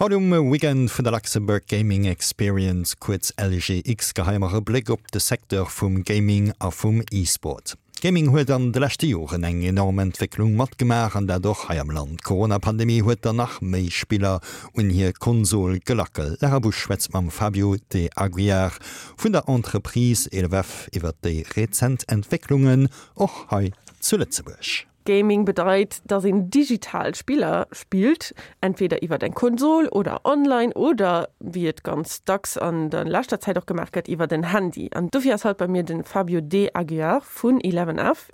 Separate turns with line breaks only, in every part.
Haut um Weekend vun der Luxembourg Gaming Experience, kuerz LGX, geheie mer e Bléck op de Secteur vum Gaming a vum E-Sport. Gaming huet an de leschte Joren eng enorm Entwécklung matgemaach, an dat och hei am Land. D'Corona-Pandemie huet der nach méi Spiller un hir Konsol gelackelt. D'Lara Busch schwätzt mam Fabio De Aguiar vun der Entreprise 11F iwwer déi rezent Entwécklungen och hei zu Lëtzebuerg.
Gaming bedeit, dass een digital Spiller spillt, entweder iwwert eng Konsol oder online oder, wéi et ganz dacks an der leschter Zäit och gemaach gëtt, iwwert en Handy. An dofir ass haut bei mir de Fabio De Aguiar vun Eleven F.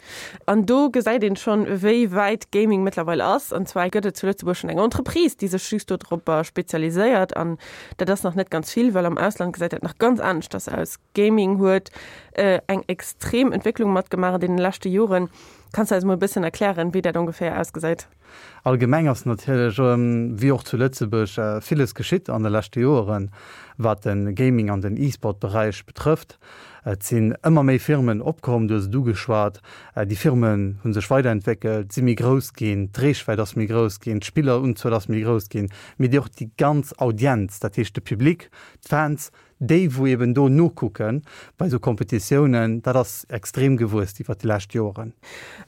An do gesäit een schonn, wéi wäit Gaming mëttlerweil ass. An zwar gëtt et zu Lëtzebuerg schonn eng Entreprise, déi sech just dodropper spezialiséiert. An dat ass nach net ganz vill, well am Ausland gesäit dat nach ganz aneschters aus. Gaming huet eng extrem Entwécklung matgemaach an deene leschte Joren. Kanns du eis mol e bëssen erklären, wéi dat ongeféier ausgesäit?
Allgemeng ass natierlech, wéi och zu Lëtzebuerg, villes geschitt an de leschte Joeren, wat de Gaming an den E-Sport-Beräich betrëfft. Et sinn ëmmer méi Firmen opkomm, du hues et ugeschwat. Déi Firmen hu sech weiderentwéckelt, si méi grouss ginn, d'Reechwäit ass méi grouss ginn, d'Spillerunzuel ass méi grouss ginn, mee déi och déi ganz Audienz, dat heescht de Public, d'Fans, Déi wou eben do nokucken bei esou Kompetitiounen, dat ass extrem gewuess iwwert déi lescht Joeren.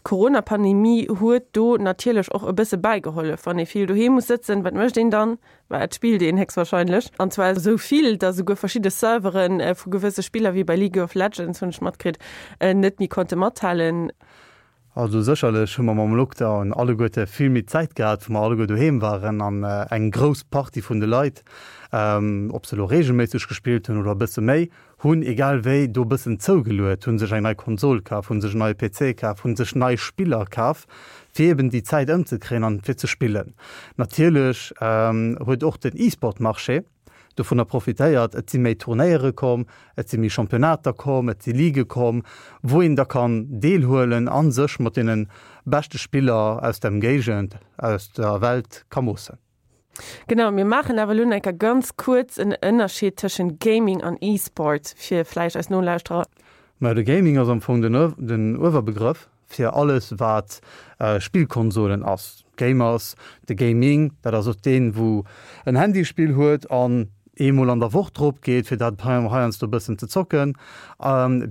D'Corona-Pandemie huet do natierlech och e bësse bäigehollef. Wann ee vill doheem muss sëtzen, wat mécht een dann? Bah, et spillt een héchstwahrscheinlech. An zwar esou vill, datt esouguer verschidde Servere vu gewësse Spiller, wéi bei League of Legends, hunn ech matkritt, net méi konnte mathalen.
Also sécherlech hu mer mam Lockdown alleguerte vill méi Zäit gehat, wou mer alleguer doheem waren an eng grouss Partie vun de Leit, ob se elo reegelméisseg gespillt hunn oder e bësse méi, hunn egal wéi do e bëssen zougeluet, hu sech eng nei Konsol kaf, hu sech en neie PC kaf, hu sech nei Spiller kaf, fir eben déi Zäit ëmzekréien an fir ze spillen. Natierlech huet och den E-Sport-Marché dovunner profitéiert. Et si méi Turnéiere komm, et si méi Championnater komm, et si Ligue komm, wou een da kann deelhuelen a sech mat deene beschte Spiller aus der Ëmgéigend, aus der Welt ka moossen.
Genau, mir maachen awer elo nach eng Kéier ganz kuerz en Ënnerscheed tëschent Gaming an E-Sport, fir vläicht eis Nolauschterer.
Majo, de Gaming ass am Fong den Uewerbegrëff fir alles wat Spillkonsolen ass, Gamers, de Gaming, dat ass och deen wou en Handyspill huet an eemol an der Woch drop geet fir dat heiansdo e bëssen ze zocken,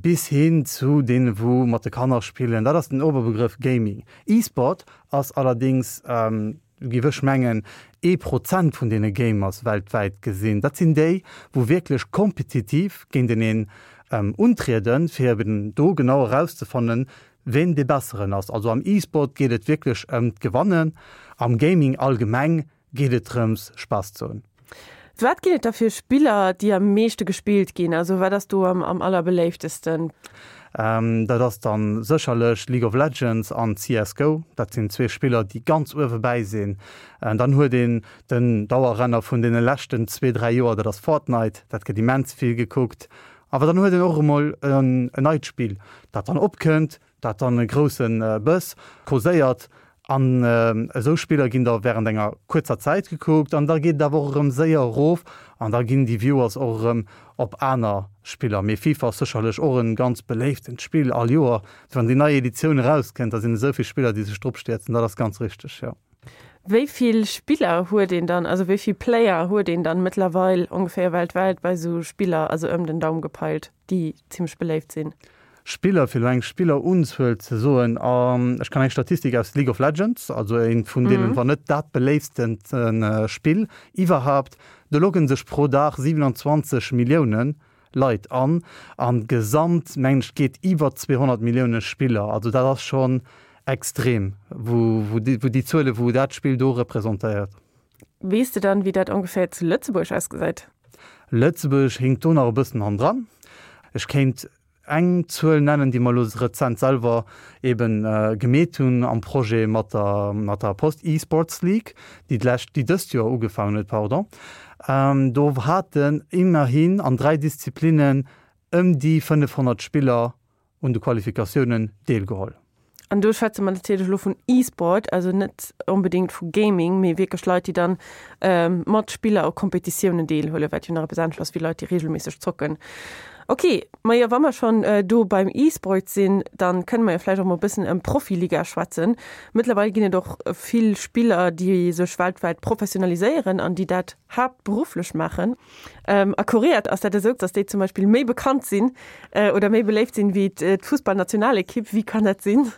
bis hin zu deene wou mat de Kanner spillen, dat ass den Oberbegrëff Gaming. E-Sport ass allerdings Giff ech mengen, ee Prozent vun deene Gamers weltwäit gesinn. Dat sinn déi, wou wierklech kompetitiv géinteneen untrieden, fir eben do genau erauszefannen, ween dee Besseren ass. Also am E-Sport geet et wierklech ëm d'Gewannen, am Gaming allgemeng geet et drëms, Spaass ze hunn.
Wat ginn et da fir Spiller, déi am meeschte gespillt ginn? Also wat ass do am allerbeléiftesten?
Dat ass dann sécherlech League of Legends an CS Go. Dat sinn zwee Spiller, déi ganz uewe bäi sinn. Dann huet een den Dauerrenner vun deene leschten zwee, dräi Joer, dat ass Fortnite. Dat gëtt immens vill gekuckt. Awer dann huet een och emol en neit Spill, dat dann opkënnt, dat dann e grousse Bëss causéiert an esou Spiller ginn da während enger kuerzer Zäit gekuckt an da geet et awer och erëm séier erof an da ginn déi Viewers och erëm op aner Spiller. Mee FIFA ass sécherlech och e ganz beléiftent Spill all Joer, wann déi nei Editioun erauskënnt, da sinn esou vill Spiller déi sech drop stierzen, dat ass ganz richteg, jo.
Wéi vill Spiller huet een dann, also wéi vill Player huet een dann mëttlerweil ongeféier weltwäit bei esou Spiller, also ëm den Daum gepeilt, déi zimmlech beléift sinn?
Spiller, fir elo eng Spillerunzuel ze soen, ech kann eng Statistik aus League of Legends, also eent vun deenen, wann net dat beléifstent Spill iwwerhaapt, do logge sech pro Dag 27 Millioune Leit an, an gesamt mengen ech geet iwwer 200 Millioune Spiller, also dat ass schonn extrem, wou déi Zuele wou dat Spill do representéiert.
Weess de dann, wéi dat ongeféier zu Lëtzebuerg ausgesäit?
Lëtzebuerg hinkt do nach e bëssen hannendran. Ech kéint eng Zuel nennen, déi mer elo rezent selwer eben gemeet hunn am Projet mat der, mat der Post eSports League, déi d'lescht, déi dëst Joer ugefaangen huet, pardon. Do haten immerhin an 3 Disziplinnen ëm déi 500 Spiller un de Qualifikatiounen deelgeholl.
An do schwätze mer natierlech elo vun E-Sport, also net onbedéngt vu Gaming, mee wierklech Leit, déi dann mat Spiller u Kompetitiounen deelhuelen, wat jo nach eppes anescht ass wéi Leit, déi reegelméisseg zocken. Ok, majo wa mer schonn do beim E-Sport sinn, dann kënne mer jo vläicht och mol e bëssen ëm Profiliga schwätzen. Mëttlerweil ginn et och vill Spiller, déi sech weltwäit professionaliséieren an déi dat haaptberufflech maachen. A Korea ass dat esou, dass déi zum Beispill méi bekannt sinn oder méi beléift sinn wéi d'Fussballnationalekipp. Wéi kann dat sinn?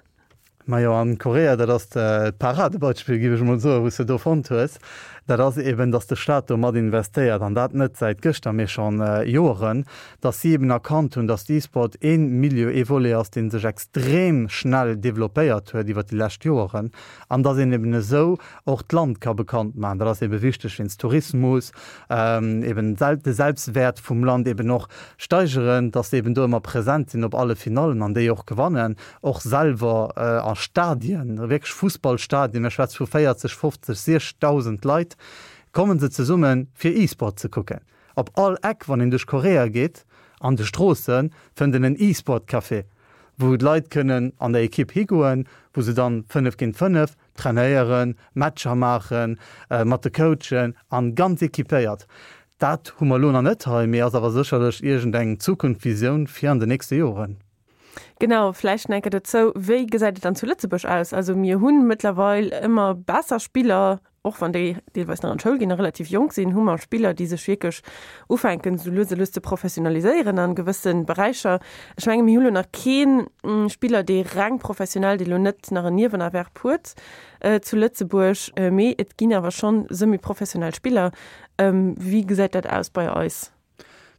Majo, an Korea, dat ass d'Paradebeispill, géif ech emol soen, wou s de do fonnt hues. Dat ass eben, datt de Staat do mat investéiert, an dat net säit gëschter, mee schonn Joeren, datt si eben erkannt hunn, datt d'E-Sport ee Milieu, ee Volet ass, dee sech extrem schnell developpéiert huet iwwert déi lescht Joeren, an datt een eben esou och d'Land ka bekannt maachen. Dat ass ebe wichteg wéinst Tourismus, eben de Selbstwäert vum Land eben och steigeren, datt se eben do ëmmer present sinn op alle Finallen an déi och gewannen. och selwer a Stadien, wierklech Fussballstadien, mir schwätze vu 40, 50, 60.000 Leit, komme se zesumme fir E-Sport ze kucken. Op all Eck, wann een duerch Korea geet, an de Stroosse fënnt een en E-Sport-Café, wou d'Leit kënnen an der Ekipp higoen, wou se dann 5 géint 5 trainéieren, Matcher maachen, mat de Coachen an ganz equipéiert. Dat hu mer elo nach net hei, mee ass awer sécherlech iergendeng Zukunftsvisioun fir an de nächste Joren.
Genau, vläicht nach eng Kéier dozou, Wéi gesäit et dann zu Lëtzebuerg aus? Also mir hu mëttlerweil ëmmer besser Spiller, och wann déi deelweis nach an d'Schoul ginn a relativ jonk sinn, hu mer Spiller, déi sech wierklech ufänken, esou lues a lues ze professionaliséieren a gewësse Beräicher. Ech menge mir hu lo nach kee Spiller, dee reng professionell, dee lo net nach en Niewenerwerb huet zu Lëtzebuerg, mee et ginn awer schonn semi-professionell Spiller. Wéi gesäit dat aus bei eis?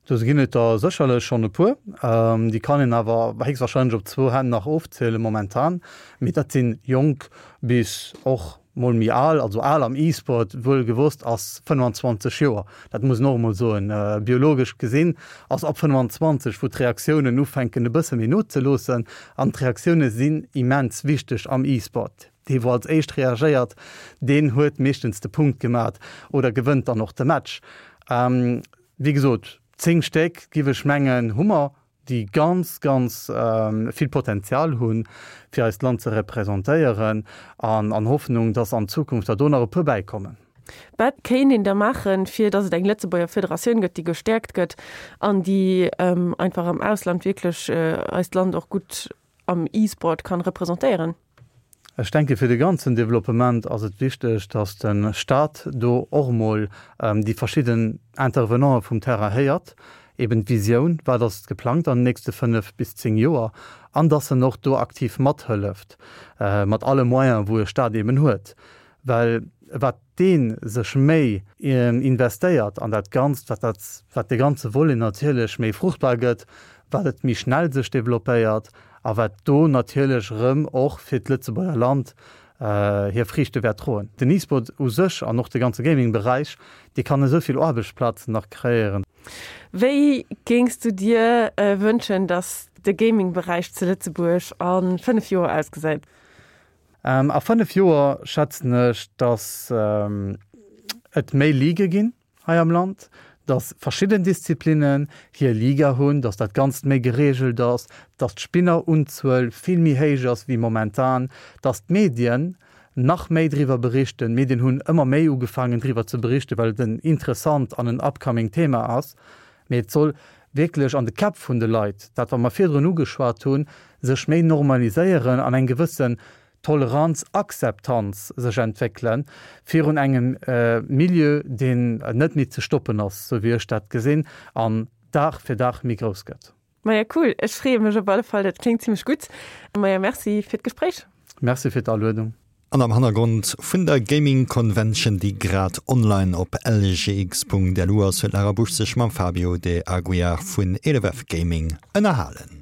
Do ginn et der sécherlech schonn e puer. Déi kann een awer héchstwahrscheinlech op zwou Hänn nach ofzielen momentan. Mee dat si jonk bis och mol méi al. Also al am E-Sport, wuel gewosst, ass 25 Joer. Dat muss een och emol soen. Biologesch gesinn ass ab 25, wou d'Reaktiounen ufänken e bësse méi nozeloossen. An d'Reaktioune sinn immens wichteg am E-Sport. Dee wou als éischt reagéiert, deen huet meeschtens de Punkt gemat oder gewënnt dann och de Match. Wéi gesot, 10 Stéck, giff ech mengen, hu mer, déi ganz, ganz vill Potenzial hunn, fir eist Land ze representéieren, an an Hoffnung, dass an Zukunft der do nach e puer bäikommen.
Wat kéint een da maachen, fir dass et eng Lëtzebuerger Federatioun gëtt, déi gestäerkt gëtt an déi einfach am Ausland wierklech eist Land och gutt am E-Sport kann representéieren?
Ech denke fir de ganzen Developpement ass et wichteg, datt de Stat do och emol déi verschidden Intervenanten vum Terrain héiert, eben d'Visioun, wat ass geplangt an den nächste 5 bis 10 Joer, an datt en och do aktiv mathëlleft mat alle Moyenen, wou e Stat eben huet. Well wat dee sech méi investéiert an dat Ganzt, wat dat, wat de ganze Volet natierlech méi fruchtbar gëtt, wat et méi schnell sech développéiert a wat do natierlech erëm och fir d'Lëtzebuerger Land hir Friichte wäert droen. Den E-Sport u sech an och de ganze Gaming-Beräich, dee kann esou vill Aarbechtsplazen nach kreéieren.
Wéi géings du dir wënschen, datt de Gaming-Beräich zu Lëtzebuerg a 5 Joer ausgesäit?
A 5 Joer schätzen ech, datt et méi Ligue ginn hei am Land, datt verschidden Disziplinnen hir Liga hunn, datt dat Ganzt méi gereegelt ass, datt d'Spinnerunzuel vill méi héich ass wéi momentan, datt d'Medien nach méi driwwer berichten. D'Medien hunn ëmmer méi ugefaangen driwwer ze berichten, well et en interessant an en upcoming Thema ass. Mee et soll wierklech an de Käpp vun de Leit, dat wat mer virdrun ugeschwat hunn, sech méi normaliséieren an eng gewëssen Toleranz, Akzeptanz sech entwéckele virun engem Milieu, deen net méi ze stoppen ass, sou wéi ech dat gesinn, an Dag fir Dag méi grouss gëtt.
Maja cool, ech freeë mech op alle Fall, dat kléngt zimlech gutt. Maja Merci fir d'Gespréich.
Merci fir d'Aluedung.
An am Hannergrond vun der Gaming Convention, déi grad online op lgx.lu ass, huet d'Lara Busch sech mam Fabio De Aguiar vun 11F Gaming ënnerhalen.